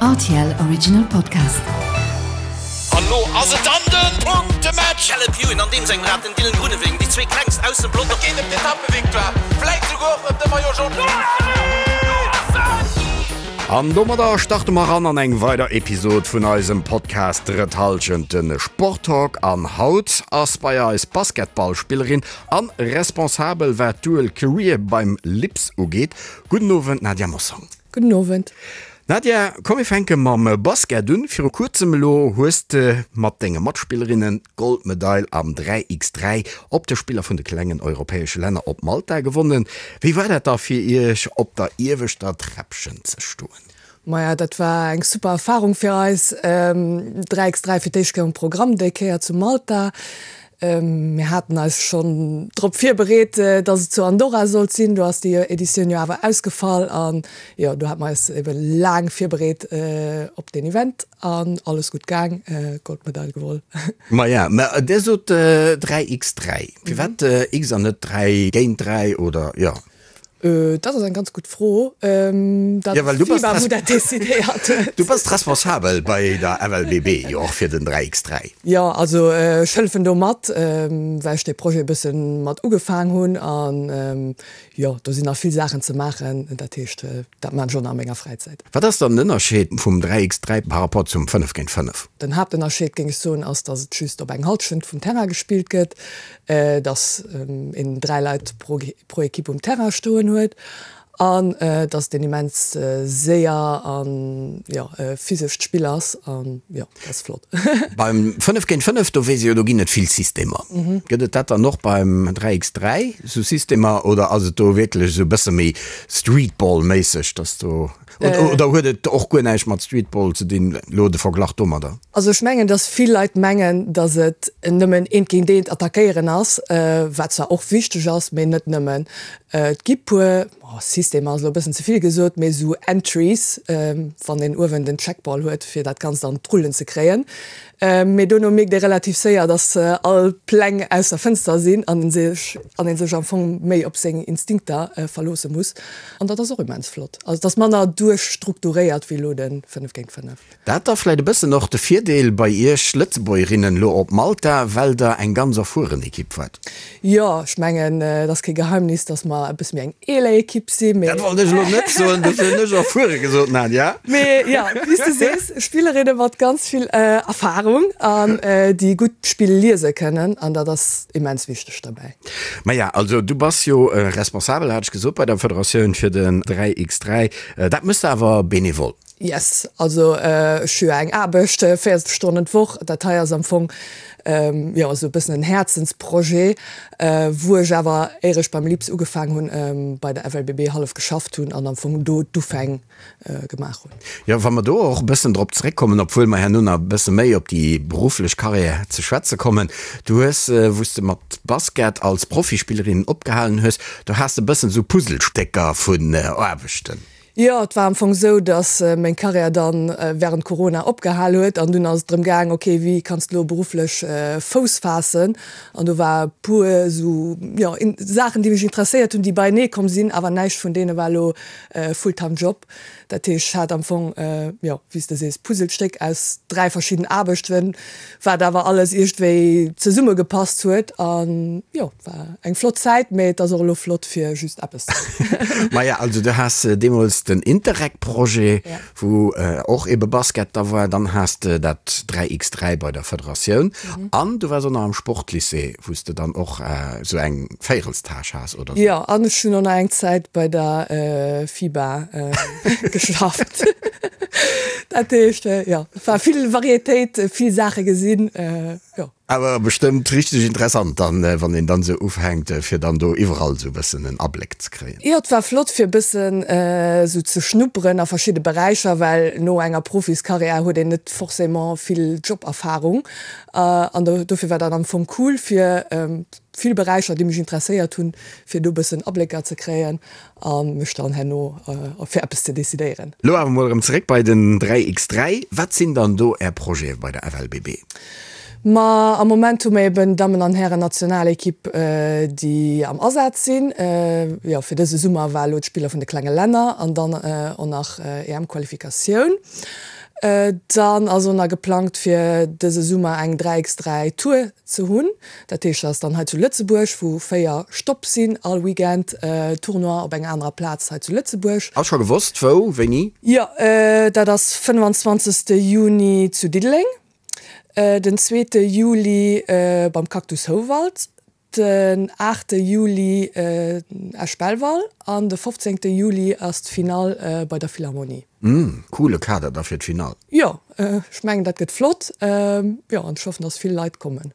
Rtl Original Podcast. An lo ass et dann den Punktematch! Caleb Ewan an deem sengem Rad, den Dylan Groenewegen, déi zwee klengst aus dem Pelotong. Et geet ëm d'Etappevictoire, vläit souguer och ëm de Maillot Jaune. An domadder starte mer ran an eng weider Episod vun eisem Podcast Drëtt Hallschent, de Sporttalk. An haut ass bei eis Basketballspillerin an Responsabel wat d'Dual Career beim LIPS ugeet. Gudden Owend Nadia Mossong. Gudden Owend. Nadia, komm mir fänke mam Basket un. Viru kuerzem elo hues de mat denge Matspillerinnen d'Goldmedail am 3 x 3 op de Spiller vun de klengen europäesche Länner op Malta gewonnen. Wéi war dat da fir iech op der ieweschter Träppchen ze stoen? Maja, dat war eng super Erfarung fir eis. 3 x 3 fir d'éischt Kéier um Programm, déi Kéier zu Malta. Mir haten eis schonn drop virbereet, dass et zu Andorra sollt sinn. Do ass déi Editioun jo awer ausgefall an jo, do hate mer eis ebe laang virbereet op deen Event an alles gutt gaang, Goldmedail gewol. Maja, mä Dir sot 3 x 3. Firwat x an net 3 géint 3 oder jo? Dat ass eng ganz gutt Fro. Dat Ja, well du bass FIBA, wou dat decidéiert huet. Du bass responsabel bei der FLBB jo och fir den 3x3. Jo, also ech hëllefen do mat, well ech dee Projet e bësse mat ugefaang hunn. An jo, do sinn nach vill Saachen ze maachen. Dat heescht, dat maan ech och nach a menger Fräizäit. Wat ass dann den Ënnerscheed vum 3x3 par rapport zum 5 géint 5? Den Haaptënnerscheed, géing ech soen, ass, datt et just op eng Hallschent vum Terrain gespillt gëtt. dass een 3 Leit pro Equipe um Terrain stoen huet an dass et een immens séier an jo physescht Spill ass an jo dat ass flott. Beim 5 géint 5, do weess ee jo, do ginn et vill Systemer. Gëtt et dat dann och beim 3 x 3, esou Systemer, oder ass et do wierklech esou e bësse méi Streetball-méisseg, dass do Oder huet et och guer näischt mat Streetball ze dinn, elo de Verglach domadder? Also ech mengen, datt vill Leit mengen, datt et nëmmen eent géint eent attackéieren ass, wat zwar och wichteg ass, mee net nëmmen. Et gi puer, Systemer ass elo e bëssen ze vill gesot, mee esou Entries, wann een uewen den Checkball huet, fir dat Ganzt an d'Rullen ze kréien. Mee dono mierkt ee relativ séier, datt all Pläng aus der Fënster sinn an en sech an ee sech am Fong méi op seng Instinkter verloosse muss. An dat ass och immens flott. Also et ass manner duerchstrukturéiert wéi elo de 5 géint 5. Dat da vläit e bëssen och de Virdeel bei iech Lëtzebuergerinnen elo op Malta, well der eng ganz erfueren Ekipp waart. Jo, ech mengen, et ass kee Geheimnis, datt mer e bësse méi eng eeler Ekipp sinn, mee. Dat wollt ech elo net soen, dofir hunn ech erfuere gesot, Nadia. Mee jo, wéi s de sees, Spillerinne mat ganz vill Erfarung an déi gutt d'Spill liese kënnen, an dat ass immens wichteg derbäi. Maja, also du bass jo Responsabel, hat ech gesot, bei der Federatioun fir den 3x3. Dat méchs de awer benevol? Yes, also ech hu jo eng Aarbecht, 40 Stonnen d'Woch. Dat hei ass am Fong jo esou e bëssen en Häerzensprojet, wou ech awer, éier ech beim LIPS ugefaang hunn, bei der FLBB hallef geschafft hunn an am Fong do d'Ufäng gemaach hunn. Jo, wa mer do och e bëssen drop zeréckkommen, obwuel mer herno nach e bësse méi op déi berufflech Karriär ze schwätze kommen. Du hues, wou s de mat Basket als Profispillerin opgehalen hues, do has de e bëssen esou Puzzlestécker vun Aarbechten. Jo, et war am Fong esou, datt meng Karriär dann wärend Corona opgehal huet an dunn ass et drëm gaang, ok, wéi kanns de elo berufflech Fouss faassen? An do war e puer esou, jo, Saachen, déi mech interesséiert hunn, déi beienee komm sinn, awer näischt vun deene war elo e Fulltime Job. Dat heescht, ech hat am Fong, jo, wéi s de sees, Puzzlestéck aus 3 verschidden Aarbechten, wat awer alles iergendwéi zesummegepasst huet an, jo. War eng flott Zäit, mee et ass och elo flott fir just eppes ze hunn. Maja, also du has deemools den Interreg-Projet, wou och ebe Basket da war, dann has de dat 3x3 bei der Federatioun an du waars och nach am Sportlycée, wou s de dann och esou eng Véierelstâche has, oder sou? Jo, an ech hunn och nach eng Zäit bei der FIBA geschafft. Dat heescht, jo, et war vill Varietéit, vill Saache gesinn, jo. Awer bestëmmt richteg interessant dann, wann een dann esou ufänkt, fir dann do iwwerall esou e bëssen en Abléck ze kréien. Jo, et war flott fir e bëssen esou ze schnupperen a verschidde Beräicher, well no enger Profiskarriär huet een net forcément vill Joberfarung an dofir war dat am Fong cool fir vill Beräicher, déi mech interesséiert hunn, fir do e bëssen Ablécker ze kréien a mech dann herno fir eppes ze decidéieren. Lo awer mol erëm zeréck bei den 3x3. Wat sinn dann do Är Projete bei der FLBB? Ma am Moment hu mer eben Dammen an Hären Nationalekipp, déi am Asaz sinn. Jo, fir dëse Summer war elo d'Spiller vun de klenge Länner an dann och nach EM-Qualifikatioun. Dann ass och nach geplangt fir dëse Summer eng 3 x 3 Tour ze hunn. Dat heescht, dat ass dann hei zu Lëtzebuerg, wou 4 Stopp sinn all Weekend, Tournoi op enger anerer Plaz hei zu Lëtzebuerg. Ass scho gewosst wou, wéini? Jo, dat ass 25 Juni zu Diddeleng, den zweete Juli beim Cactus Houwald, den aachte Juli Esch-Belval an de 15 Juli ass d'Finall bei der Philharmonie. Mmh, coole Kader da fir d'Finall. Jo, ech mengen dat gëtt flott. Jo, an ech hoffen, dass vill Leit kommen.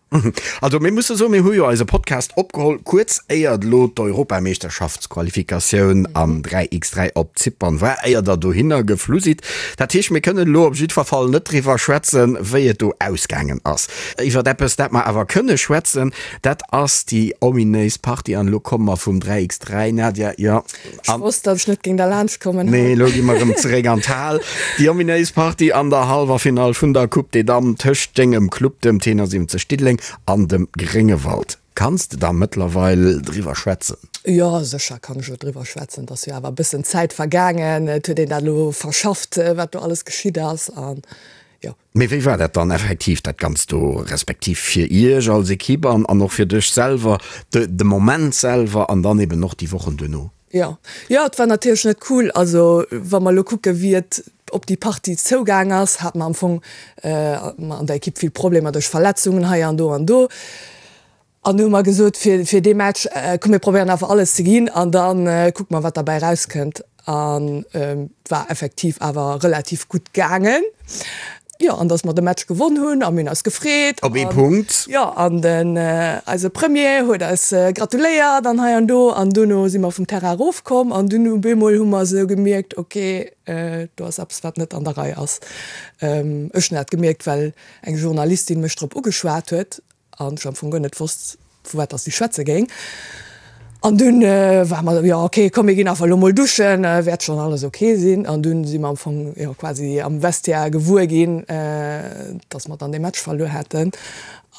Also mir musse soen, mir hu jo eise Podcast opgeholl kuerz éier elo d'Europameeschterschaftsqualifikatioun am 3x3 op Zypern war, éier der dohinner geflu sidd. Dat heescht, mir kënnen elo op jiddwer Fall net driwwer schwätzen, wéi et do ausgaangen ass. Iwwer eppes, dat mer awer kënne schwätzen, dat ass déi ominéis Partie. An elo komme mer vum 3x3, Nadia, jo. Ech wosst, datt ech net géing derlaanscht kommen. Nee, elo gi mer erëm zeréck an d'Hal. Déi ominéis Partie an der Hallwerfinall vun der Coupe des Dames tëscht dengem Club, dem T71 Diddeleng, an dem Gréngewald. Kanns de da mëttlerweil driwwer schwätzen? Jo, sécher kann ech elo driwwer schwätzen. Et ass jo awer e bëssen Zäit vergaangen. Et huet een dat elo verschafft, wat do alles geschitt ass. An jo. Mee wéi war dat dann effektiv, dat Ganzt do, respektiv fir Iech als Equipe an an och fir dech selwer, de de Moment selwer an dann eben och déi Wochen duerno? Jo, jo, et war natierlech net cool. Also wa mer elo kucke wéi et op déi Partie zougaang ass, hate mer am Fong an der Equipe vill Problemer duerch Verletzungen hei an do an do. An du hu mer gesot, fir, fir dee Match, komm mir probéieren einfach alles ze ginn an da kucke mer wat derbäi erauskënnt. An et war effektiv awer relativ gutt gaangen. Jo, an datt mer de Match gewonn hunn a mir hunn eis gefreet. Op ee Punkt. Jo, an den, eise Premier huet eis gratuléiert an hei an do. An duerno si mer vum Terrain erofkomm an dunn op eemol hu mer esou gemierkt, ok, do ass eppes wat net an der Rei ass. Ech hunn dat gemierkt, well eng Journalistin mech drop ugeschwat huet An ech am Fong guer net wosst, vu wat dass si schwätze géing. An dunn war mer, jo ok, komm mir ginn einfach elo mol duschen, wäert schonn alles ok sinn. An dunn si mer am Fong, jo quasi am Vestiaire gewuer ginn, dass mer dann dee Match verluer haten.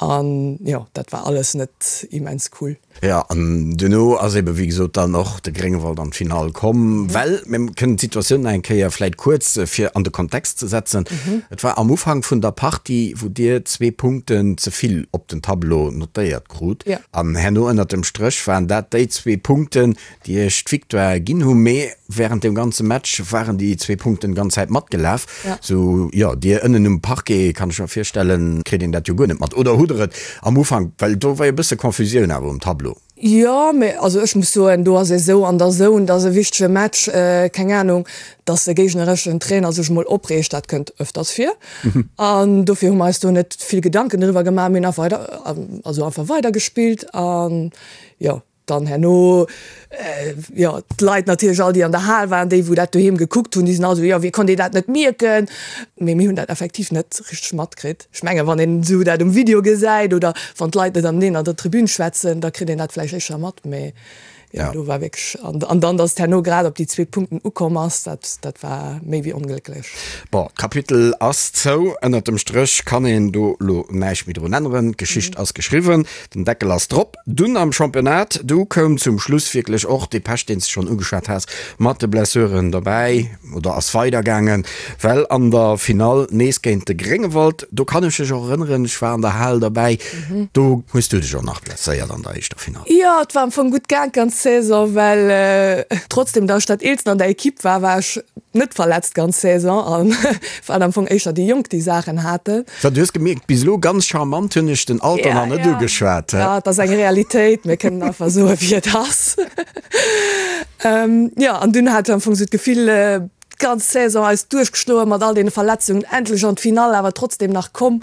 An jo, dat war alles net immens cool. Jo, an duerno ass ebe wéi gesot dann och de Gréngewald an d'Finall komm, well mir kënnen d'Situatioun nach eng Kéier vläit kuerz fir an de Kontext ze setzen. Et war am Ufank vun der Partie, wou Dir zwee Punkten ze vill op den Tableau notéiert krut an herno ënnert dem Stréch waren dat déi zwee Punkten, déi Iech d'Victoire ginn hu. Mee wärend dem ganze Match waren déi zwee Punkten d'ganz Zäit matgelaf. Sou, jo, Dir ënnen um Parquet, kann ech mer virstellen, kritt een dat jo guer net mat. Oder hutt Der et am Ufank, well do war jo e bësse Confusioun awer um Tableau. Jo, mee also ech muss soen, do ass ee sou an der Zone, dat ass e wichtege Match, keng Anung, datt de géignereschen Trainer sech emol opreegt, dat kënnt ëfters vir. An dofir hu mer eis do net vill Gedanken driwwer gemaach, mir hunn einfach weider, also einfach weidergespillt an jo. Dann herno, jo, d'Leit natierlech all, déi an der Hal waren, déi wou dat doheem gekuckt hunn, déi sinn all esou, jo, wéi konnt een dat net mierken? Mee mir hunn dat effektiv net richteg matkritt. Ech mengen, wann een esou dat um Video gesäit oder wann d'Leit net aneneen an der Tribün schwätzen, da kritt een dat vläicht éischter mat. Mee jo, do war wierklech, an dann, datt et herno grad op déi zwee Punkten ukomm ass, dat, dat war méi wéi onglécklech. Bon, d'Kapitel ass zou. Ënnert dem Stréch kann een do elo näischt méi drun änneren. D'Geschicht ass geschriwwen. Den Deckel ass drop. Dunn am Championnat, du koum zum Schluss wierklech och dee Pech, deen s de schonn ugeschwat has, mat de Blessuren dobäi oder ass weidergaangen, well an der Finall nees géint de Gréngewald, do kann ech mech och erënneren, ech war an der Hal derbäi, do hues du dech och nach blesséiert an der éischter Finall. Jo, et war am Fong gutt gaang d'ganz Saison, well trotzdem datt ech dat Eelsten an der Ekipp war, war ech net verletzt d'ganz Saison an waren am Fong éischter déi Jonk, déi Saachen haten. So, du hues gemierkt, bis elo ganz charmant hunn ech den Alter nach net ugeschwat. Ja, et ass eng Realitéit, mir kënnen einfach soen, wéi et ass. Jo, an dunn hat ech am Fong esou d'Gefill, d'ganz Saison eis duerchgeschloe mat all deene Verletzungen, endlech an d'Finall awer trotzdem nach komm.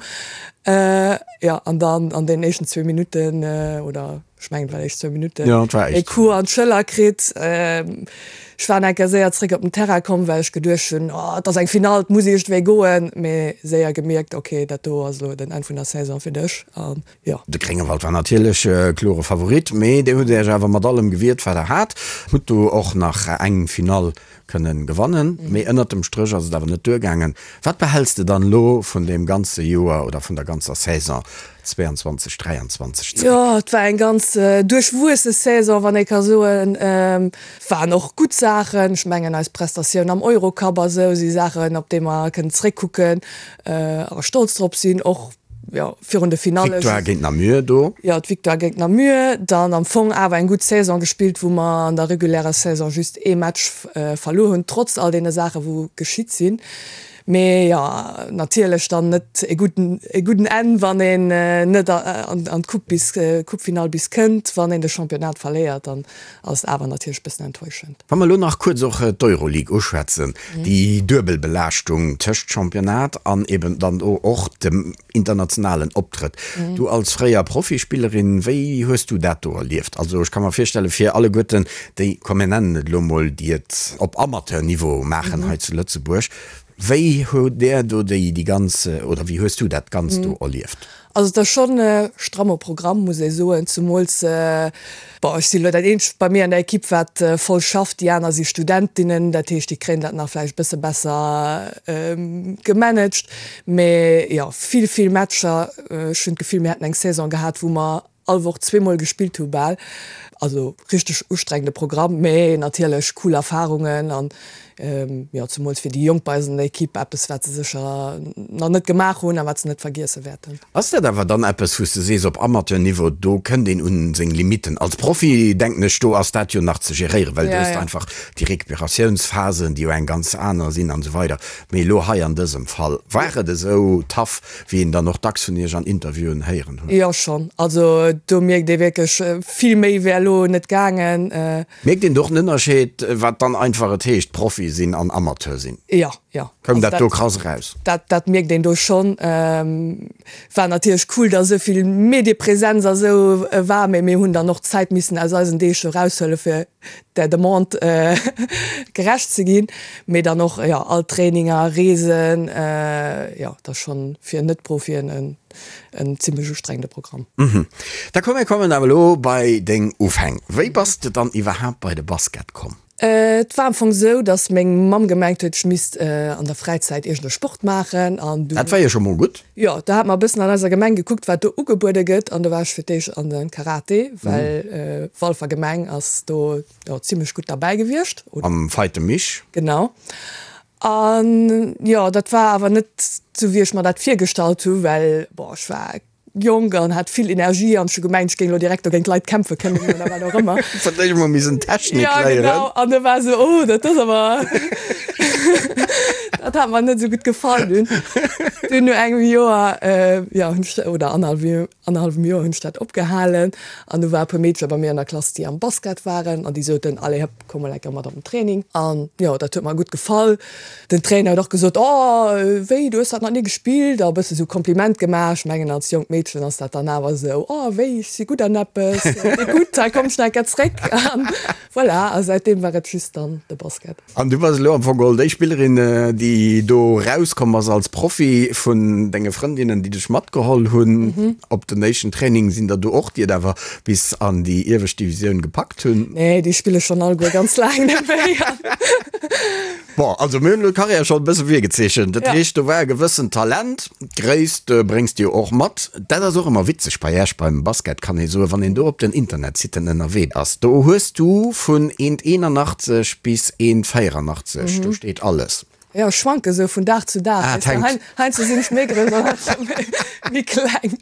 Jo, an dann an deenen éischten zwee Minutten, oder ech mengen et war éischt zwou Minutten, e Coup an d'Schëller kritt. Ech war eng Kéier séier zréck op den Terrain komm, well ech geduecht hunn, oh, et ass eng Finall, et muss iergendwéi goen. Mee séier gemierkt, ok, dat do ass elo den Enn vun der Saison fir dech. An jo. De Gréngewald war natierlech klore Favorit, mee dir hutt Iech awer mat allem gewiert, wat der hat. Hutt do och nach eng Finall kënnen gewannen, mee ënnert dem Stréch ass et awer net duergaangen. Wat behäls de dann elo vun deem ganze Joer oder vun der ganzer Saison 22, 23 zeréck? Jo, et war eng ganz duerchwuesse Saison, wann ee ka soen. Waren och gutt Saachen. Ech mengen eis Prestatioun am Eurocup a sou si Saachen, op déi mer kënnen zeréckkucken a stolz drop sinn. Och jo, virun de Finalle. D'Victoire géint Namur do. Jo, d'Victoire géint Namur. Dann am Fong awer eng gutt Saison gespillt, wou mer an der regulärer Saison just ee Match verluer hunn, trotz all deene Saachen, wou geschitt sinn. Mee jo, natierlech dann net e gudden, e gudden Enn, wann een net an d'Coupe bis, Coupefinall bis kënnt. Wann een de Championnat verléiert, dann ass et awer natierlech e bëssen enttäuschend. Wa mer elo nach kuerz och d'Euroleague uschwätzen, déi duebel Belaaschtung tëscht Championnat an eben dann do och dem internationalen Optrëtt. Du als fréier Profispillerin, wéi hues du dat do erlieft? Also ech ka mer virstelle fir alleguerten déi, komm mir nennen et elo mol, déi et op Amateurniveau maachen hei zu Lëtzebuerg, wéi hutt där do déi ganz, oder wéi hues du dat Ganzt do erlieft? Also et ass schonn e stramme Programm, muss ee soen, zemools, bon, ech sinn elo dat eenzegt bei mir an der Ekipp, wat voll schafft, déi aner si Studentinnen, dat heescht, déi kréien dat nach vläicht e bësse besser gemanagt. Mee jo, vill, vill Matcher. Ech hunn d'Gefill, mir hätten eng Saison gehat, wou mer all Woch zweemol gespillt hu bal. Also richteg ustrengende Programm, mee natierlech cool Erfarungen an jo zemools fir déi Jonk bei eis an der Ekipp eppes wat se sécher nach net gemaach hunn a wat se net vergiesse wäerten. Ass dat awer dann eppes wou s de sees op Amateurniveau do kënnt een un seng Limitten? Als Profi denken ech do ass dat jo nach ze geréieren, well du hues einfach déi Recuperatiounsphasen déi jo eng ganz aner sinn an esou weider. Mee elo hei an dësem Fall war et esou tough wéi een dann och dacks vun Iech an Interviewen héieren huet. Jo schonn, also do mierkt ee wierklech, vill méi wär elo net gaangen. Mierkt een do och en Ënnerscheed, wat dann einfach et heescht Profi sinn an Amateur sinn? Jo, jo. Koum dat do krass eraus? Dat, dat mierkt een do schonn. War natierlech cool, datt esou vill Mediepresenz a sou war, mee mir hunn dann och Zäit missen aus eisen Deeg eraushuele fir der Demande gerecht ze ginn, mee dann och jo all Traininger, Reesen, jo dat ass schonn fir Net-Profien en en zimmlech ustrengende Programm. Da komm mir kommen awer elo bei deng Ufäng. Wéi bass de dann iwwerhaapt bei de Basket komm? Et war am Fong sou, dass meng Mamm gemengt huet, ech misst an der Fräizäit iergend e Sport maachen an du. Dat war jo scho mol gutt. Jo, da hat mer e bëssen an eiser Gemeng gekuckt, wat do ugebuede gëtt an do war ech fir d'éischt an de Karate, well Walfer Gemeng ass do jo zimmlech gutt derbäi gewiescht. Am Veite Mich. Genau. An jo, dat war awer net sou, wéi ech mer dat virgestallt hu, well bon, ech war Jonk an hat vill Energie an ech hu gemengt, ech géing elo direkt do géint d'Leit kämpfe kënnen oder wat och ëmmer. Fir d'éischt mol missen Technik léieren. Ja, genau. An da war esou, oh, dat ass awer, dat hat mer net esou gutt gefall dunn. Dunn no engem Joer, jo, hunn ech, oder annerhallwem Joer hunn ech dat opgehalen an du war e puer Meedcher bei mir an der Klass, déi am Basket waren an déi soten, allez hëpp, komm mol eng Kéier mat op den Training. An jo, dat huet mer gutt gefall. Den Trainer huet och gesot, Oh, wéi, du hues dat nach ni gespillt? A e bësse sou Kompliment gemaach. Ech mengen, als jonkt Meedchen ass dat dann awer esou, Oh, wéi, ech si gutt an eppes. Wéi gutt, hei komm ech nach eng Kéier zréck. An voilà, a säitdeem war et just dann de Basket. An du bass elo am Fong geholl déi Spillerin, déi do rauskomm ass als Profi vun denge Frëndinnen, déi dech matgeholl hunn op den éischten Training. Sinn der do och, déi et awer bis an déi iewescht Divisioun gepackt hunn? Nee, déi spille schonn alleguer ganz laang net méi. Bon, also mir hunn elo d'Karriär schonn e bësse virgezeechent. Dat heescht, do war e gewëssent Talent. D'Gréisst bréngs de jo och mat. Dat ass och ëmmer witzeg bei Iech beim Basket, kann ee soen, wann een do op den Internetsitten ënnerwee ass. Do hues du vun 1,81 bis 1,84, do steet alles. Jo, ech schwanke sou vun Dag zu Dag. Ah, et hänkt. Heiansdo sinn ech méi grouss an heiansdo méi kleng.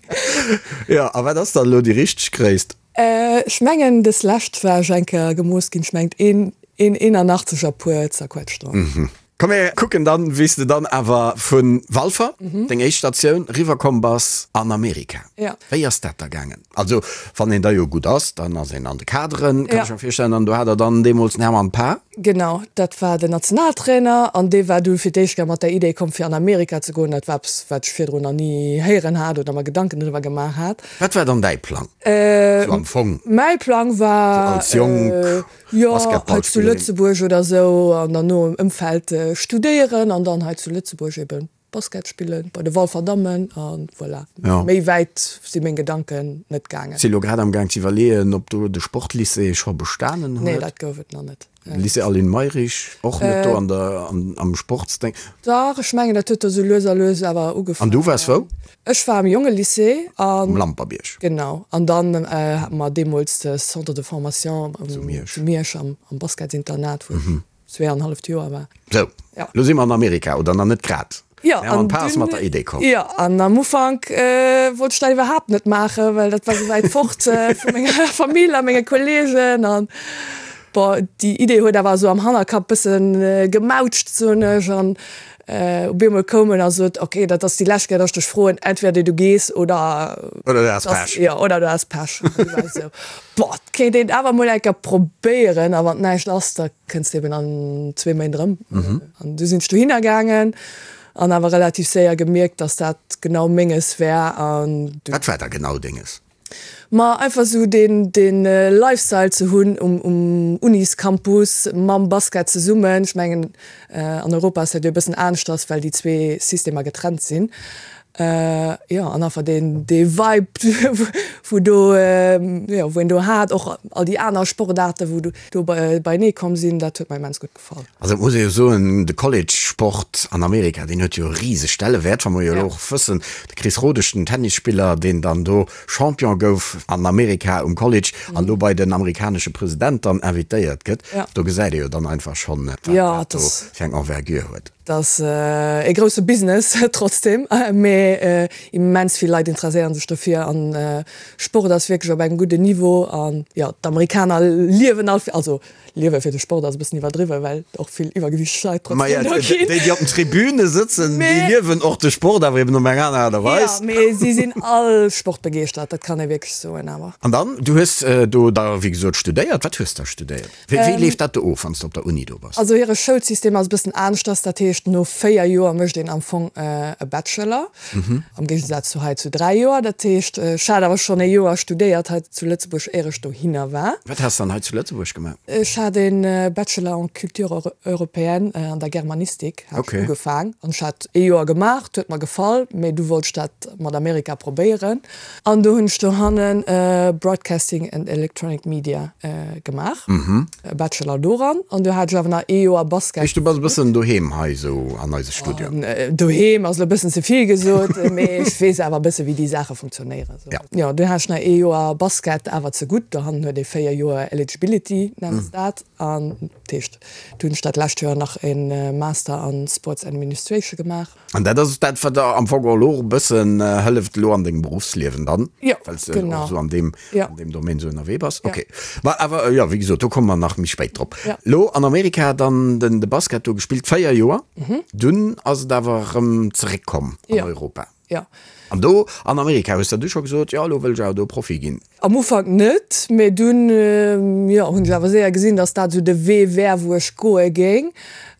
Jo, a wat ass dann elo déi richteg Gréisst? Ech mengen des lescht war ech eng Kéier gemooss ginn, ech mengt een 81 a puer zerquetscht dran. Komm mir kucken dann wéi s de dann awer vu Walfer, deng éischt Statioun, riwwer komm bass an Amerika. Wéi ass dat da gaangen? Also wann een da jo gutt ass, dann ass een an de Kaderen, kann ech mer virstellen, an do hat der dann deemools den Hermann Paar? Genau, dat war den Nationaltrainer an dee war du fir d'éischt Kéier mat der Idee komm fir an Amerika ze goen. Dat war eppes wat ech virdrun nach ni héieren hat oder mer Gedanken driwwer gemaach hat. Wat war dann däi Plang sou am Fong? Mäi Plang war, als jonk jo, hei zu Lëtzebuerg oder sou an dann no am Ëmfeld studéieren an dann hei zu Lëtzebuerg eben Basket spillen bei de Walfer Dammen a voilà. Méi wäit si meng Gedanken net gaangen. Si lo grad am Gaang ze iwwerleeën, ob do de Sportlycée scho bestanen huet. Nee, dat gouf et nach net. Lycée Aline Mayrisch och net do an der am Sportsdéng? Dach, ech mengen dat huet do sou lues a lues awer ugefaangen. An du waars wou? Ech war am Jongelycée an. Um Lampertbierg. Genau. An dann hate mer deemools de Centre de formation zu Miersch am Basketsinternat, wou ech zweeanenhalleft Joer war. Sou, lo si mer an Amerika, oder nach net grad? Jo, an d'Pa ass mat der Idee komm. Jo, an am Ufank wollt ech dat iwwerhaapt net maachen, well dat war sou wäit fort vu menger Famill a menge Kolleegen. An bon, déi Idee huet awer esou am Hannerkapp bësse gemautscht, soen ech. An op eemol koum en a sot, ok, dat ass déi lescht Kéier, datt ech dech froen, entweder du gees oder. Oder du has Pech. Jo, oder du has Pech. An du war ech esou, boah, et kéint een awer mol eng Kéier probéieren a wann näischt ass, da kënns de eben an zwee Méint erëm. An du sinn ech dohinner gaangen an awer relativ séier gemierkt, dass dat genau Menges wär. An du. Wat war da genau Denges? Ma einfach esou deen, dee Lifestyle ze hunn um, um Uniscampus mam Basket zesummen. Ech mengen, an Europa ass dat jo e bëssen aneschters, well déi zwee Systemer getrennt sinn. Jo, an einfach deen, dee Vibe, wou do, jo, wou een do hat, och all déi aner Sportaarten, wou do beienee komm sinn, dat huet mer immens gutt gefall. Also et muss ee jo soen, de College-Sport an Amerika, deen huet jo e riseg Stellewäert, wa mer jo elo och wëssen, de Chris Rodesch, den Tennisspiller, deen dann do Champion gouf an Amerika um College an do bei den amerikanesche President dann invitéiert gëtt, do gesäit ee jo dann einfach schonn, wat dat do fir eng Envergure huet. Et ass e grousse Business trotzdem, mee immens vill Leit interesséieren sech dofir an Sport ass wierklech op engem gudden Niveau an jo, d'Amerikaner liewen all, also liewe fir de Sport ass e bëssen iwwerdriwwen, well och vill iwwergewichteg Leit trotzdem do ginn. Déi, déi op den Tribüne sëtzen, déi liewen och de Sport, awer eben op eng aner Aart a Weis. Jo, mee si sinn all sportbegeeschtert, dat kann ee wierklech soen awer. An dann, du hues do da wéi gesot studéiert. Wat hues de da studéiert? Wéi leeft dat do of, wann s de op der Uni do bass? Also hire Schoulsystem ass e bëssen aneschters. Dat heescht, no 4 Joer mécht een am Fong e Bachelor, am Géigesaz zu hei zu 3 Joer. Dat heescht, ech hat awer schonn ee Joer studéiert hei zu Lëtzebuerg, éier ech dohinner war. Wat has de dann hei zu Lëtzebuerg gemaach? Ech hat e Bachelor en culture européenne an der Germanistik hat ech ugefaang. An ech hat ee Joer gemaach, 't huet mer gefall, mee du wollt ech dat mat Amerika probéieren. An do hunn ech dohannen Broadcasting and Electronic Media gemaach, e Bachelor doran. An du hat ech awer nach ee Joer Basket. Heescht du bass e bëssen doheem hei esou an eise Studio? Doheem ass elo e bëssen ze vill gesot, mee ech weess awer e bësse wéi déi Saache funktionéieren. Jo, dunn hat ech nach ee Joer Basket awer ze gutt. Dohannen huet ee 4 Joer Eligibility, nennen se dat. An dat heescht, du hunn ech dat lescht Joer nach e Master an Sports Administration gemaach. An dat ass dat, wat der am Fong och elo e bëssen hëlleft elo an dengem Beruffsliewen dann, well s de och esou an deem, an deem Domaine esou ënnerwee bass. Okay. Ma awer, jo, wéi gesot, do komme mer nach méi spéit drop. Elo an Amerika dann den, de Basket do gespillt, 4 Joer, dunn ass et awer erëm zeréckkomm an Europa. Jo. An do an Amerika hues der du scho gesot, jo, elo wëll ech awer do Profi ginn? Am Ufank net, mee dunn, jo, hunn ech awer séier gesinn, dass dat esou de Wee wär, wou ech goe géing.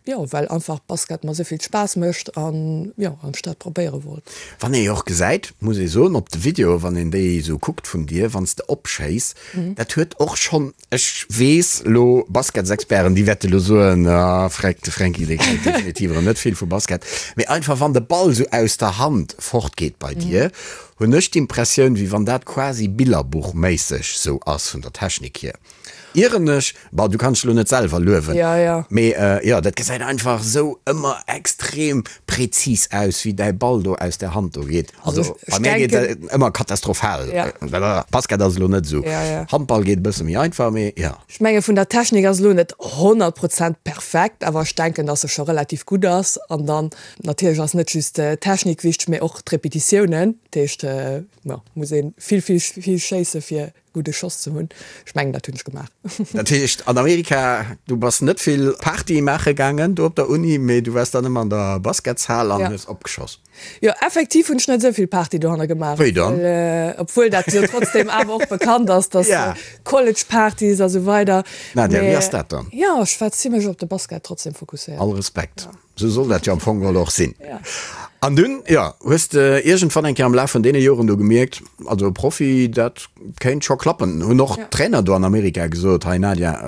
Jo, well einfach Basket mer esou vill Spaass mécht an, jo, an ech dat probéiere wollt. Wann ee jo och gesäit, muss ee soen, op de Videoe wann een déi esou kuckt vun dir, wann s de opschéiss, dat huet och schonn, ech weess elo, Basketsexperten, déi wäerte elo soen, ah, Freck, de Fränki, dee kennt definitiv erëm net vill vu Basket, mee einfach wann de Ball esou aus der Hand fortgeet bei dir, Hunn ech d'Impressioun, wéi wann dat quasi billerbuchméisseg sou ass vun der Technik hier. Ieren ech? Bon, du kanns dech lo net selwer luewen, mee jo, dat gesäit einfach sou ëmmer extrem präzis aus, wéi däi Ball do aus der Hand do geet. Also bei mär geet dat ëmmer katastrophal. Basket ass elo net sou. Handball geet e bësse méi einfach, mee jo. Ech menge vun der Technik ass elo net 100 Prozent perfekt, awer ech denken, dass se scho relativ gutt ass. An dann natierlech ass net just d'Technik wichteg, mee och d'Repetitiounen. Dat heescht, jo, muss ee vill, vill, vill schéisse fir. Gudde Schoss ze hunn. Ech mengen, dat hunn ech gemaach. Dat heescht, an Amerika, du bass net vill Party maache gaangen do op der Uni, mee du waars dann ëmmer an der Basketshal an hues opgeschoss. Jo, effektiv hunn ech net esou vill Party dohanner gemaach. Wéi dann? Obwuel dat jo trotzdem awer och bekannt ass, dass College-Partys a sou weider. Nadia, wéi ass dat dann? Jo, ech war zimlech op de Basket trotzdem fokusséiert. All Respekt. Sou soll dat jo am Fong geholl och sinn. An dunn, jo, hues de iergendwann eng Kéier am Laf vun deene Joren do gemierkt, also Profi, dat kéint scho klappen? Hunn och d'Trainer do an Amerika gesot, hei Nadia,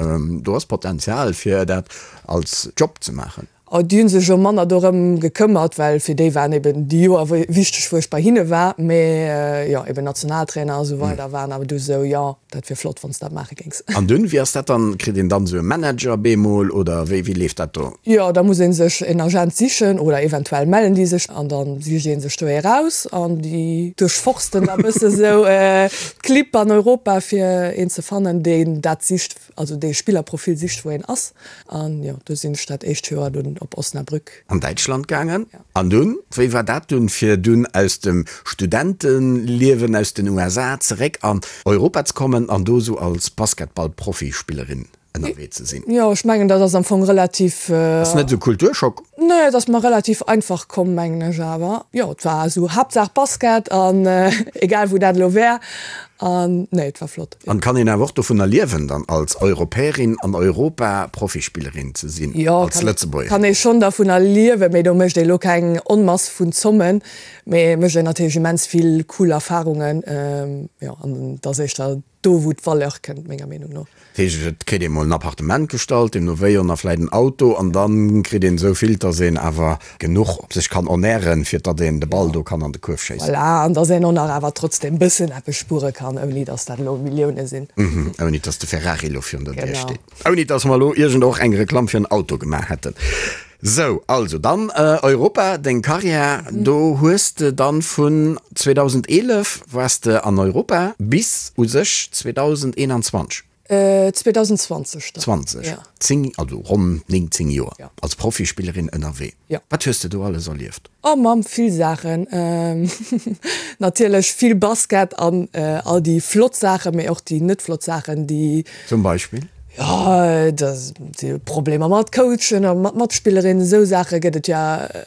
do ass Potenzial fir dat als Job ze maachen? Oh, déi hu sech jo manner dorëm gekëmmert, well fir déi waren eben déi Joer wichteg, wou ech bei hinne war. Mee jo, eben Nationaltrainer a sou weider waren awer du sou, jo, dat wier flott, wann s de dat maache géings. An dunn, wéi ass dat dann? Kritt een dann esou e Manager bemol oder wéi, wéi leeft dat do? Jo, da muss ee sech en Agent sichen oder eventuell mellen déi sech an da sicht ee sech do ee raus an déi duerchforsten da bësse sou d'Clibb an Europa fir een ze fannen, deen dat sicht, also dee Spillerprofil sicht, wou een ass. An jo, do sinn ech dat éischt Joer dunn op Osnabrück. An Däitschland gaangen. An dunn, wéi war dat dunn, fir dunn aus dem Studenteliewen aus den USA zeréck an Europa ze kommen an do esou als Basketball-Profispillerin ënnerwee ze sinn? Jo, ech mengen, dat ass am Fong relativ. Ass net esou Kulturschock? Nee, et ass mer relativ einfach komm, mengen ech awer. Jo, et war esou Haaptsaach Basket an egal wou dat elo wär. An nee, et war flott. An kann een awer och dovunner liewen dann als Europäerin an Europa Profispillerin ze sinn, als Lëtzebuergerin? Jo, kann ee schonn dervunner liewen, mee do mécht ee lo keng Onmass vun Zommen, mee mécht een natierlech immens vill cool Erfarungen. Jo, an et ass éischter do wou d'Valeur kënnt, menger Meenung no. Dat heescht, et kritt ee mol en Appartement gestallt, deemno wéi, an da vläit en Auto, an da kritt een esou vill, dass een awer genuch sech kann ernären, fir datt een de Ball do kann an de Kuerf schéissen. Voilà, an dass een och nach awer trotzdem bëssen eppes spuere kann, ouni dass dat elo Millioune sinn. Ouni dass de Ferrari elo virun der Dier steet. Ouni dass mer elo iergend och eng Reklamm fir en Auto gemaach hätten. Sou, also dann Europa, deng Karriär, do hues de dann vun 2011 waars de an Europa bis u sech 2021. 2020 dann. 20, ja. 10, also ronn 9, 10 Joer ja. als Profispillerin ënnerwee. Ja. Wat hues de do alles erlieft? Oh Mamm, vill Saachen. Natierlech vill Basket an all déi flott Saachen, mee och déi net flott Saachen, déi. Zum Beispill? Jo, da si Problemer mat Coachen a mat Matspillerinnen, esou Saache gëtt et jo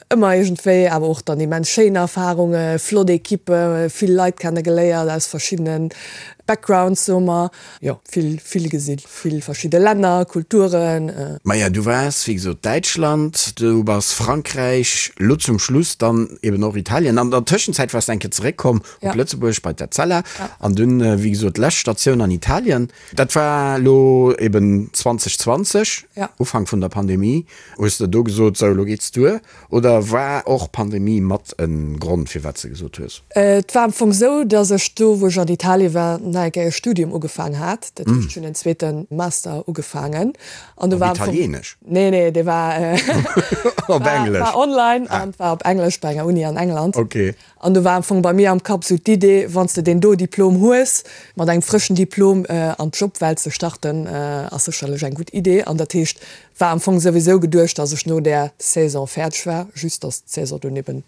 ëmmer iergendwéi. Awer och dann immens schéin Erfarunge, flott Ekippe, vill Leit kenne geléiert aus verschiddene Backgrounds, soe mer. Jo, vill, vill gesinn, vill verschidde Länner, Kulturen. Maja, du waars wéi gesot Däitschland, du bass Frankräich, lo zum Schluss dann eben och Italien. An der Tëschenzäit waars de eng Kéier zeréckkomm op Lëtzebuerg bei d'Etzella an dunn, wéi gesot, lescht Statioun an Italien. Dat war elo eben 2020, Ufank vun der Pandemie. Hues de do gesot, sou elo geets duer? Oder war och Pandemie mat e Grond firwat s de gesot hues? Et war am Fong sou, datt ech do wou ech an Italie war nach eng Kéier e Studium ugefaang hat. Dat heescht ech hunn en zweete Master ugefaangen an do war am Fong. Op Italienesch? Nee, nee, dee war op Englesch. War online an war op Englesch bei enger Uni an England. Okay. An do war am Fong bei mir am Kapp sou d'Idee, wann s de deen do Diplom hues, mat engem frëschen Diplom an d'Jobwelt ze starten, ass sécherlech eng gutt Idee. An dat heescht, war am Fong souwisou geduecht, dass ech no där Saison fäerdeg war, just dass d'Saison dunn eben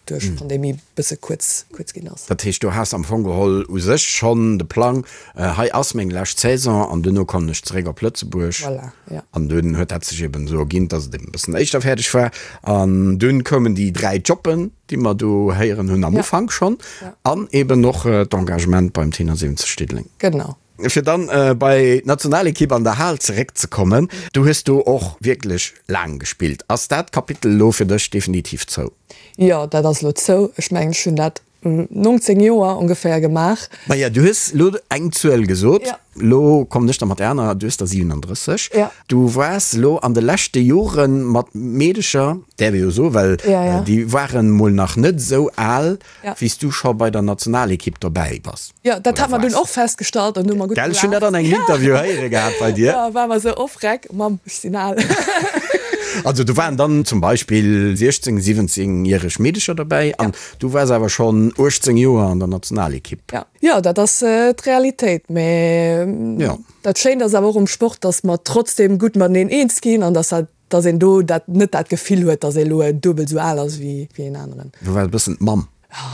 duerch d'Pandemie bësse kuerz kuerz ginn ass. Dat heescht, du has am Fong geholl u sech schonn de Plang, hei ass meng lescht Saison an duerno kommen ech zeréck op Lëtzebuerg. Voilà, ja. An dunn huet dat sech eben esou erginn, dass et eben e bëssen éischter fäerdeg war. An dunn koumen déi 3 Jobben, déi mer do héieren hunn am Ufank schonn, an eben och d'Engagement beim Tenor 70 Diddeleng. Genau. Fir dann bei d'Nationalekipp an der Hal zeréckzekommen, du hues do och wierklech laang gespillt. Ass dat Kapitel elo fir dech definitiv zou? Jo, dat ass elo zou. Ech mengen, ech hunn dat 19 Joer ongeféier gemaach. Maja, du hues elo eng Zuel gesot. Elo kommen ech da mat der anerer, du hues der 37. Du waars elo an de leschte Jore mat Meedecher, däerf ee jo soen, well déi waren mol nach net esou al, wéi s du scho bei der Nationalekipp dobäi bass. Jo, dat hat mer dunn och festgestallt an hu mer gutt gelaacht. Gell, ech hunn dat an engem Interview héiere gehat bei dir. Jo, war mer esou, oh freck, Mamm, ech sinn al. Also do waren dann zum Beispill 16-, 17 järeg Meedecher dobäi an du waars awer schonn 18 Joer an der Nationalekipp. Jo. Jo, dat ass d'Realitéit. Mä dat Schéint ass awer och um Sport, datt mer trotzdeem gutt mateneen eens ginn an datt dat, datt een do dat net dat Gefill huet, datt ee elo duebel esou al ass wéi een aneren. Du waars e bëssen d'Mamm.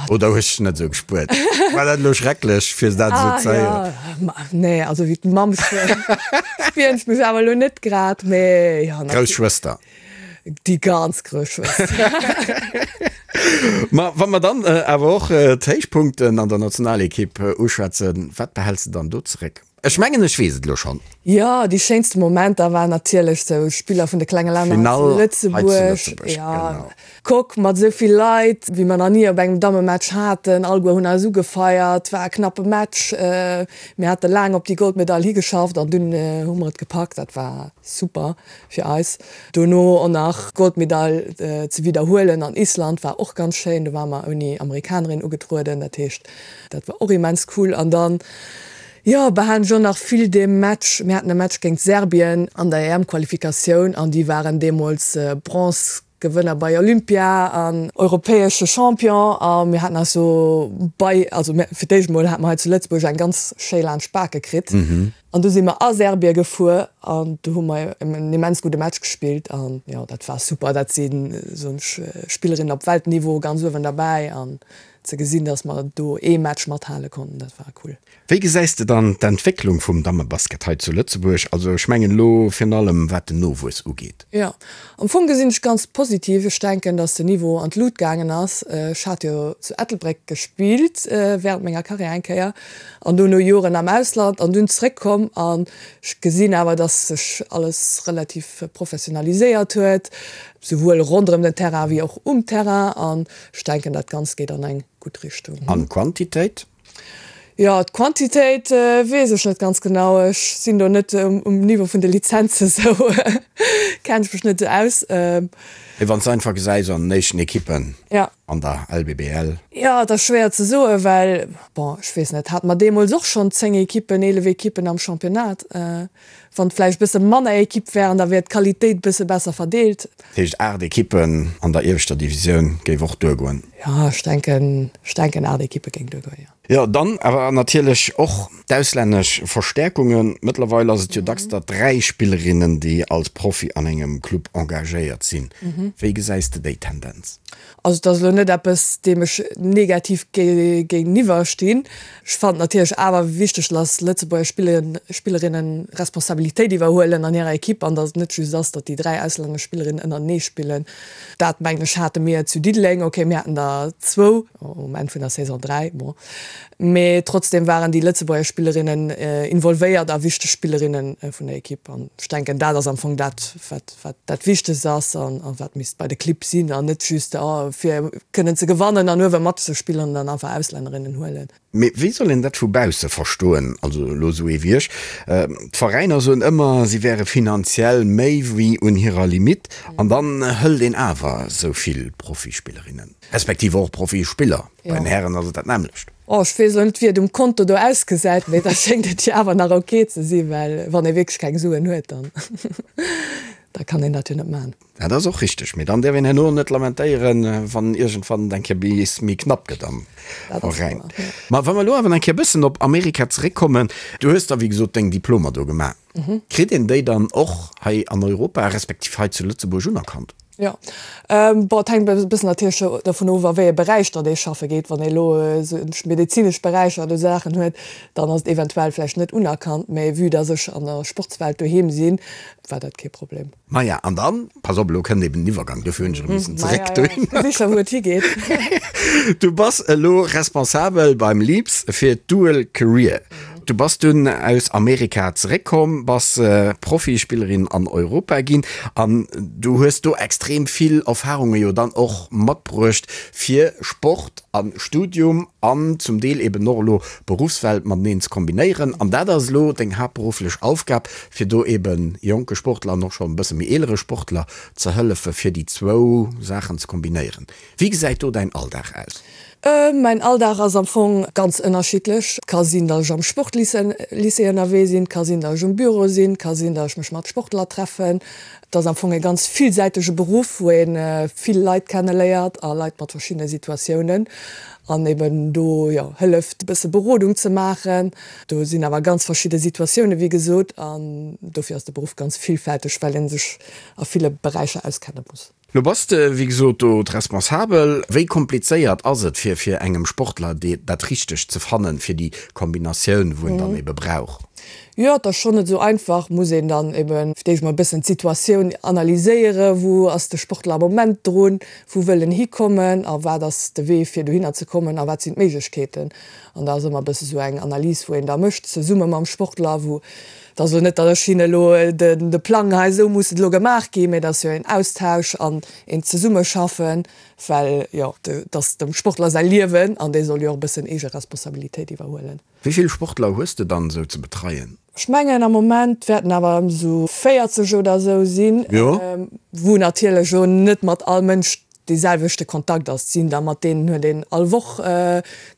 Oder hues dech net esou gespuert? War dat elo schrecklech, fir dat esou ze héieren? Ah jo, nee, also wéi d'Mamm spieren ech mech awer elo net grad, mee jo. Grouss Schwëster. Déi ganz grouss Schwëster. Ma wa mer dann awer och d'Héichpunkten an der Nationalekipp uschwätzen, wat behäls de dann do zeréck? Ech mengen ech weess et elo schonn. Jo, déi schéinste Momenter waren natierlech sou Spiller vun de klenge Länner hei zu Lëtzebuerg. Jo, Coque mat esou vill Leit wéi mer nach ni op engem Dammematch haten. Alleguer hunn eis ugefeiert. War e knappe Match. Mir hate laang op déi Goldmedail higeschafft an dunn hu mer et gepackt. Dat war super fir eis. Dono och nach d'Goldmedail ze widderhuelen an Island war och ganz schéin. Do ware mer ouni Amerikanerin ugetrueden. Dat heescht, dat war och immens cool. An dann Jo, behalen ech och nach vill dee Match. Mir haten e Match géint Serbien an der EM-Qualifikatioun an déi waren deemools Bronze-Gewënner bei Olympia an europäesche Champion a mir haten eis do bei, also mir, fir d'éischt emol hate mer hei zu Lëtzebuerg eng ganz schéi laanscht d'Bake kritt an du si mer a Serbie gefuer an do hu mer en immens gudde Match gespillt an jo, dat war super. Dat si soen ech Spillerinnen op Weltniveau ganz uewen derbäi an ze gesinn, dass mer do ee Match mathale konnten, dat war cool. Wéi gesäis de dann d'Entwécklung vum Dammebasket hei zu Lëtzebuerg, also ech mengen elo virun allem wat den Nowuess ugeet? Jo, am Fong gesinn ech ganz positiv. Ech denken, dass den Niveau an d'Lut gaangen ass. Ech hat jo zu Ettelbréck gespillt während menger Karriär eng Kéier an dono Joren am Ausland an dunn zréckkomm an ech gesinn awer, dass sech alles relativ professionaliséiert huet, souwuel ronderëm den Terrain wéi och um Terrain an ech denken, dat Ganzt geet an eng gutt Richtung. An d'Quantitéit? Jo, d'Quantitéit weess ech net ganz genau. Ech sinn do net um Niveau vun de Lizenze sou kennen ech mech net sou aus. Mee wann s de einfach gesäis an den éischten Ekippen an der LBBL. Jo, et ass schwéier ze soen, well, bon, ech weess net, hate mer deemools och schonn 10 Ekippen, 11 Ekippen am Championnat. Wann et vläicht e bësse manner Ekipp wären, da wier d'Qualitéit e bësse besser verdeelt. Dat heescht 8 Ekippen an der ieweschter Divisioun géif och duergoen? Jo, ech denken, ech denken 8 Ekippe géing duergoen, jo. Jo, dann awer natierlech och d'auslännesch Verstäerkungen. Mëttlerweil ass et jo dacks der 3 Spillerinnen, déi als Profi an engem Club engagéiert sinn. Wéi gesäis de déi Tendenz? Also et ass elo net eppes, deem ech negativ géigeniwwer stinn. Ech fannen et natierlech awer wichteg, dass Lëtzebuerger Spillerinnen Responsabilitéit iwwerhuelen an hirer Ekipp an dass et net just ass, datt déi 3 auslännesch Spillerinnen ënnertenee spillen. Dat mengen ech hate mir zu Diddeleng, ok mir haten der zwou, um Enn vun der Saison 3, bon, mee trotzdem waren déi Lëtzebuerger Spillerinnen involvéiert a wichteg Spillerinne vun der Ekipp an ech denken dat ass am Fong dat wat wat dat Wichtegst ass an wat misst bei de Clibb sinn an net just fir kënnen ze gewannen an uewe matzespillen an dann einfach Auslännerinnen huelen. Mee wéi soll een dat vu bausse verstoen, also elo esou ee wéi ech? D'Veräiner soen ëmmer, si wäre finanziell méi wéi un hirer Limitt an dann hëlt een awer esou vill Profispillerinnen, respektiv och Profispiller, bei den Hären ass et dat nämmlecht. Oh, ech weess elo net wéi et um Konto do ausgesäit, mee da schéngt et jo awer nach ok ze sinn, well wann ee wierklech keng Suen huet, dann da kann een dat jo net man. Dat ass och richteg, mee dann däerf een herno net lamentéieren, wann iergendwann et eng Kéier bis méi knapp gëtt am Veräin. Ma wa mer elo awer nach eng Kéier e bëssen op Amerika zeréckkommen, du hues da wéi gesot deng Diplomer do gemaach. Kritt een déi dann och hei an Europa, respektiv hei zu Lëtzebuerg unerkannt? Jo, bon, et hänkt e bëssen natierlech dovun of, a wéi ee Beräich datt ee schaffe geet. Wann ee elo esou medezinesch Beräicher oder esou Saachen huet, dann ass et eventuell vläicht net unerkannt. Mä vue datt ech an der Sportswelt doheem sinn, war dat kee Problem. Maja, an dann, pass op, elo kënnt eben den Iwwergang, dofir hunn ech erëm missen zeréck dohinner. Maja, ech gesi scho wou et higeet. Du bass elo responsabel beim LEAPS fir d'Dual Career. Du bass dunn aus Amerika zeréckkomm, bass Profispillerin an Europa ginn an du hues do extrem vill Erfarunge jo dann och matbruecht fir Sport a Studium an zum Deel eben och elo Beruffswelt mateneen ze kombinéieren. An dat ass elo deng haaptberufflech Aufgab, fir do eben jonke Sportler an och schonn e bësse méi eelere Sportler ze hëllefe fir déi zwou Saachen ze kombinéieren. Wéi gesäit do däin Alldag aus? Mäin Alldag ass am Fong ganz ënnerschiddlech. Et ka sinn, datt ech am Sportlycée ënnerwee sinn, et ka sinn, datt ech um Büro sinn, et ka sinn, datt ech mech mat Sportler treffen. Et ass am Fong e ganz villsäitege Beruff, wou ee vill Leit kenneléiert a Leit mat verschiddene Situatiounen an eben do, jo, hëlleft e bësse Berodung ze maachen. Do sinn awer ganz verschidde Situatiounen, wéi gesot, an dofir ass de Beruff ganz villfälteg, well ee sech a ville Beräicher auskenne muss. Lo bass de wéi gesot do d'Responsabel. Wéi komplizéiert ass et fir fir engem Sportler dee dat Richtegt ze fannen fir déi Kombinatioun wou en dann ebe brauch? Jo, et ass schonn net esou einfach. Muss een dann ebe fir d'éischt mol e bëssen d'Situatioun analyséieren, wou ass de Sportler am Moment drun, wou wëll en hikommen a wat ass de Wee fir dohinner ze kommen a wat sinn d'Méiglechkeeten. An da ass ëmmer e bësse sou eng Analys wou een da mécht zesumme mam Sportler, wou Et ass elo net, datt ech hinne elo de Plang, hei esou muss et elo gemaach ginn, mä et ass jo een Austausch an een Zesummeschaffen, well jo, et ass dem Sportler säi Liewen an dee soll jo och e bëssen eege Responsabilitéit iwwerhuelen. Wéi vill Sportler hues de dann esou ze betreien? Ech mengen am Moment wäerten awer ëm esou 40 oder esou sinn, wou natierlech elo net mat all Mënsch dee selwechte Kontakt ass. Et sinn der, mat deenen huet een all Woch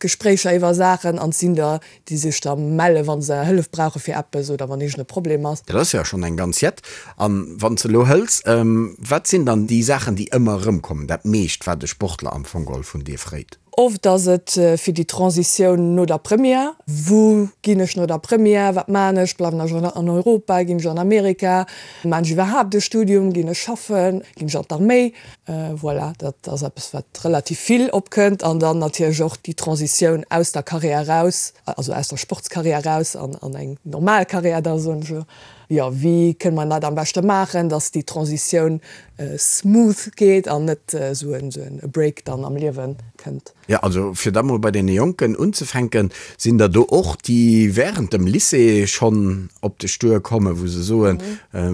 Gespréicher iwwer Saachen an et sinn der, déi sech da melle wa se Hëllef brauche fir eppes oder wann iergend e Problem ass. Dat ass jo schonn eng ganz Jett. A wann s de elo hëls, wat sinn dann déi Saachen, déi ëmmer erëmkommen, dat meescht, wat e Sportler am Fong geholl vun dir fréit? Oft ass et fir déi Transitioun no der Première, Wou ginn ech no der Première, wat maachen ech, bleiwen ech an Europa, ginn ech an Amerika, maachen ech iwwerhaapt e Studium, ginn ech schaffen, ginn ech an d'Arméi? Voilà, dat ass eppes wat relativ vill opkënnt. An dann natierlech och déi Transitioun aus der Carrière eraus, also aus der Sportscarrière eraus an an eng normal Carrière da soen ech elo. Jo, wéi kënne mer dat am beschte maachen, datt déi Transitioun smooth geet an net esou en Break dann am Liewe kënnt. Jo, also fir da mol bei deene Jonken unzefänken, sinn der do och, déi während dem Lycée schonn op dech duerkommen, wou se soen,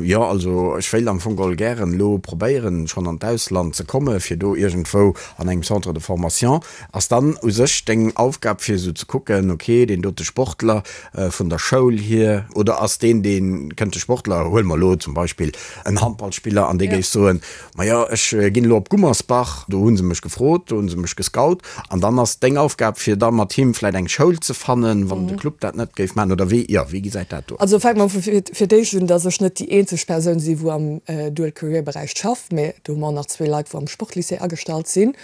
jo also ech wéilt am Fong geholl gären elo probéieren, schonn an d'Ausland ze komme fir do iergendwou an engem Centre de formation. Ass dann u sech deng Aufgab fir esou ze kucken, ok, deen dote Sportler vun der Schoul hier, oder ass deen, dee kënnt de Sportler, huele mer elo zum Beispill en Handballspiller, an dee géif soen, majo ech ginn elo op Gummersbach, do hu se mech gefrot, do hu se mech gescout, an dann ass deng Aufgab fir da mat him vläit eng Schoul ze fannen, wann de Club dat net géif maachen, oder wéi, jo, wéi gesäit dat do aus? Also fänke mer fir d'éischt un, datt ech net déi eenzeg Persoun si wou am Dual Career Beräich schafft, mä do hu mer och nach zwee Leit wou am Sportlycée agestallt sinn.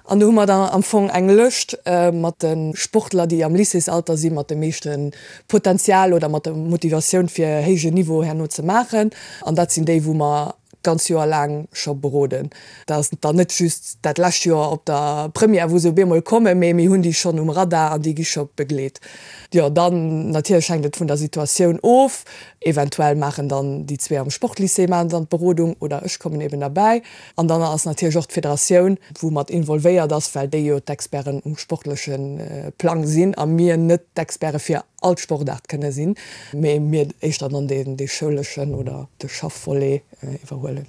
An do hu mer dann am Fong eng Lëscht mat de Sportler, déi am Lycéesalter si mat dem meeschte Potenzial oder mat der Motivatioun fir héije Niveau herno ze maachen. An dat sinn déi, wou mer d'ganz Joer laang scho beroden. Dat ass dann net just dat lescht Joer op der Première, wou se op eemol kommen, mee mir hunn déi schonn um Radar an déi gi scho begleet. Jo, dann natierlech hänkt et vun der Situatioun of. Eventuell maachen dann déi zwee am Sportlycée maachen dann d'Berodung oder ech kommen eben derbäi. An dann ass natierlech och d'Federatioun, wou mat involvéiert ass, well déi jo d'Experten um sportleche Plang sinn a mir net d'Experte fir all d'Sportaart kënne sinn, mee mir éischter dann dee schouleschen oder de Schaffvolet iwwerhuelen.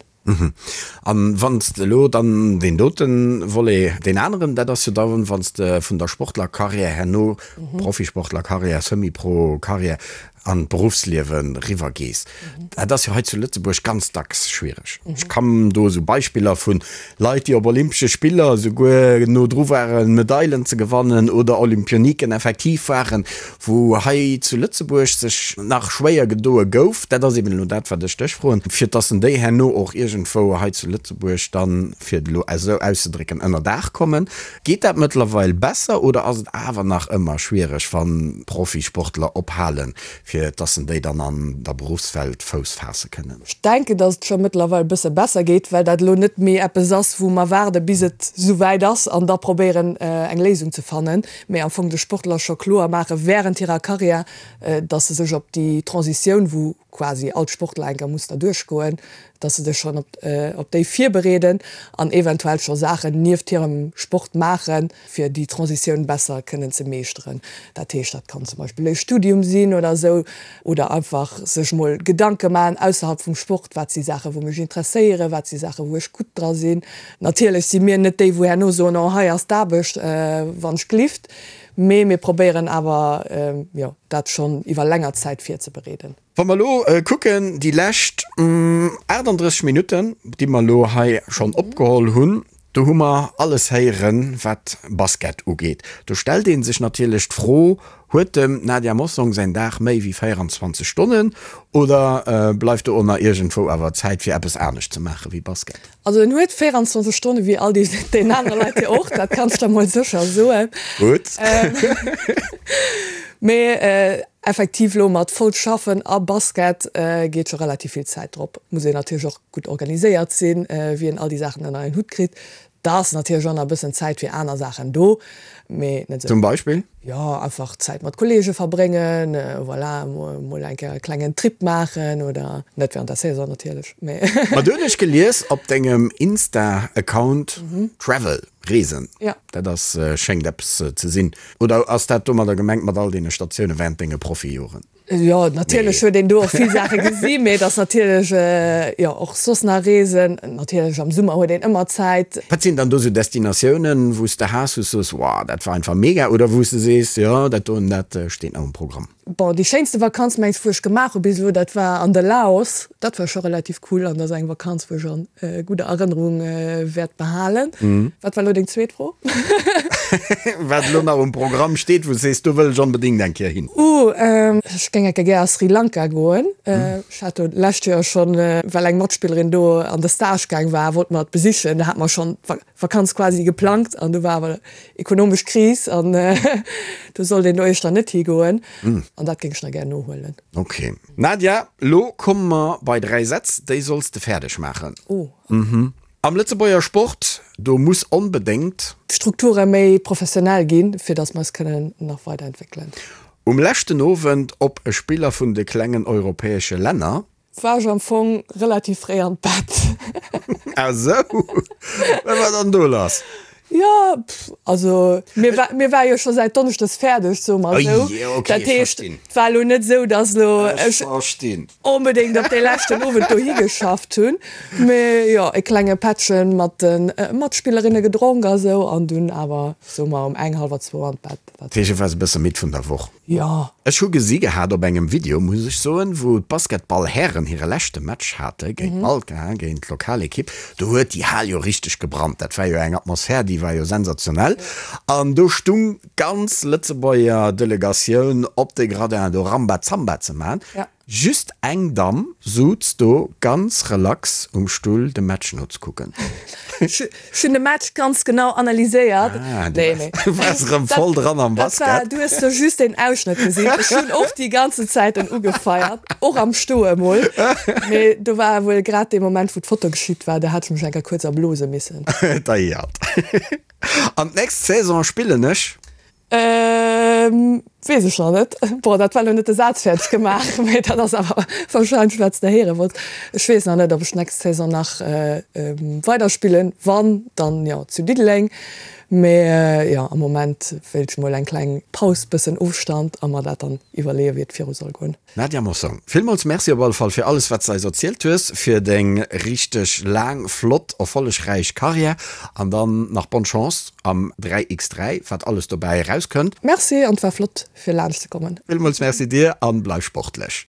An wann s de elo dann deen dote Volet, deen aneren, dat ass jo da wann s de vun der Sportlercarrière herno, Profisportlercarrière, Semi-Pro-Carrière, an d'Beruffsliewe riwwer gees. Dat ass jo hei zu Lëtzebuerg ganz dacks schwiereg. Ech kann do esou Beispiller vu Leit, déi op Olympesche Spiller esouguer no dru waren, Medailen ze gewannen oder Olympioniken effektiv waren, wou hei zu Lëtzebuerg sech nach schwéier gedoe gouf, dat ass eben elo dat, wat ech dech froen, fir dass en déi herno och iergendwou hei zu Lëtzebuerg dann, fir et elo esou auszedrécken, ënner Daach kommen. Geet dat mëttlerweil besser oder ass et awer nach ëmmer schwiereg, wann Profisportler ophalen, fir dass en déi dann an der Beruffswelt Fouss faasse kënnen? Ech denken, dass et scho mëttlerweil e bësse besser geet, well dat elo net méi eppes ass, wou mer waarde bis et esou wäit ass an da probéieren eng Léisung ze fannen, mee am Fong de Sportler scho kloer maache während hirer Karriär, dass se sech op déi Transitioun, wou quasi all Sportler enker muss derduerch goen, dass se sech schonn op déi virbereeden an eventuell scho Saachen nieft hirem Sport maachen, fir déi Transitioun besser kënnen ze meeschteren. Dat heescht, dat kann zum Beispill e Studium sinn oder esou, oder einfach sech mol Gedanke maachen ausserhalb vum Sport, wat si Saachen, wou mech interesséieren, wat si Saachen, wou ech gutt dra sinn. Natierlech si mir net déi, wou herno soen, oh hei ass d'Aarbecht, wann ech glift. Mee mir probéieren awer, jo, dat schonn iwwer länger Zäit virzebereeden. Wa mer elo kucken, déi lescht 38 Minutten, déi mer elo hei schonn opgeholl hunn, do hu mer alles héieren, wat Basket ugeet. Do stellt ee sech natierlech d'Fro, Huet dem Nadia Mossong säin Dag méi wéi 24 Stonnen oder bleift do och nach iergendwou awer Zäit, fir eppes anescht ze maache wéi Basket? Also en huet 24 Stonne wéi all déi aner Leit jo och, dat kanns de mol sécher soen. Gutt. Mee effektiv elo mat voll schaffen a Basket geet scho relativ vill Zäit drop. Muss een natierlech och gutt organiséiert sinn, wéi een all déi Saachen ënner een Hutt kritt. Da ass natierlech och nach e bëssen Zäit fir aner Saachen do, mee net esou. Zum Beispill? Jo, einfach Zäit mat Kolleege verbréngen, voilà, mol eng Kéier e klengen Trip maachen oder, net während der Saison natierlech, mee. Ma do hunn ech gelies op dengem Insta-Account, Travel, Reesen, dat ass, schéngt eppes ze sinn. Oder ass dat domadder gemengt mat all deene Statioune während denge Profijoren? Jo, natierlech huet een do och vill Saache gesi, mee et ass natierlech, jo, och soss nach Reesen. Natierlech am Summer huet een ëmmer Zäit. Wat sinn dann do sou Destinatiounen, wou s de has, wou s de soos, Wow, dat war einfach mega, oder wou s de sees, Jo, dat doen, dat steet nach um Programm? Bon, déi schéinste Vakanz, mengs, wou ech gemaach hu bis elo, dat war an de Laos. Dat war scho relativ cool an dat ass eng Vakanz, wou ech an gudder Erënnerung wäert behalen. Wat war elo deng zweet Fro? Wat elo nach um Programm steet, wou s sees, do wëll ech onbedéngt eng Kéier hin? Uh, ech géing eng Kéier gär a Sri Lanka goen. Ech hat do d'lescht Joer schonn, well eng Matspillerin do an de Stage gaang war, wollte mer et besichen. Da hate mer schonn d'Vakanz quasi geplangt an du war awer ekonomesch Kris an do sollt een do éischter net higoen. An dat géing ech nach gär nohuelen. Ok. Nadia, lo komme mer bei 3 Sätz, déi solls de fäerdeg maachen. Oh. Am Lëtzebuerger Sport, do muss onbedéngt. D'Strukture méi professionell ginn, fir datt mer eis kënnen nach weiderentwéckelen. Um leschten Owend op e Spiller vun de klengen europäesche Länner. War ech am Fong relativ fréi an d'Bett. Ah sou, wat war dann do lass? Jo, also mir war, mir war jo scho säit Donneschdes fäerdeg, soe mer esou. Oje, okay, Dat heescht, et war elo net esou, datt elo ech onbedéngt op dee leschten Owend dohi geschafft hunn. Mee jo, e klenge Pättchen mat de Matspillerinne gedronk a sou an dunn awer, soe mer, um eng, hallwer zwou an d'Bett. Dat heescht, et war e bësse midd vun der Woch. Jo. Ech hu gesi gehat op engem Video, muss ech soen, wou d'Basketball-Hären hire leschte Match hate géint Malta, géint d'Lokalekipp. Do huet déi Hal jo richteg gebrannt. Dat war jo eng Atmosphär, déi war jo sensationell. An do stung d'ganz Lëtzebuerger Delegatioun op de Gradin do Rambazamba ze man. Just eng Damm suz do ganz relax um Stull de Match nozekucken. Ech hunn de Match ganz genau analyséiert. Ah, du waars erëm voll dran am Basket. Du hues do just een Ausschnëtt gesinn. Ech hunn och déi ganzen Zäit en ugefeiert, och am Stoe mol. Mee do war wuel grad dee Moment, wou d'Foto geschitt war, do hat ech mech eng Kéier kuerz erblose missen. Deiert. An d'nächst Saison spillen ech. Weess ech nach net. Bon, dat war elo net de Saz fäerdeg gemaach, mee dat ass awer warscheinlech wat s de héiere wollts. Ech weess nach net, ob ech d'nächst Saison nach weiderspillen. Wann, dann jo zu Diddeleng. Mee jo, am Moment wéilt ech mol eng kleng Paus, bëssen Ofstand a mer dat dann iwwerleeën, wéi et viru soll goen. Nadia Mossong, villmools Merci op alle Fall fir alles wat s de eis erzielt hues, fir deng richteg laang, flott, erfollegräich Karriär an dann nach bonne Chance am 3x3, wat alles dobäi erauskënnt. Merci an et war flott fir laanscht ze kommen. Villmools Merci dir an bleif sportlech.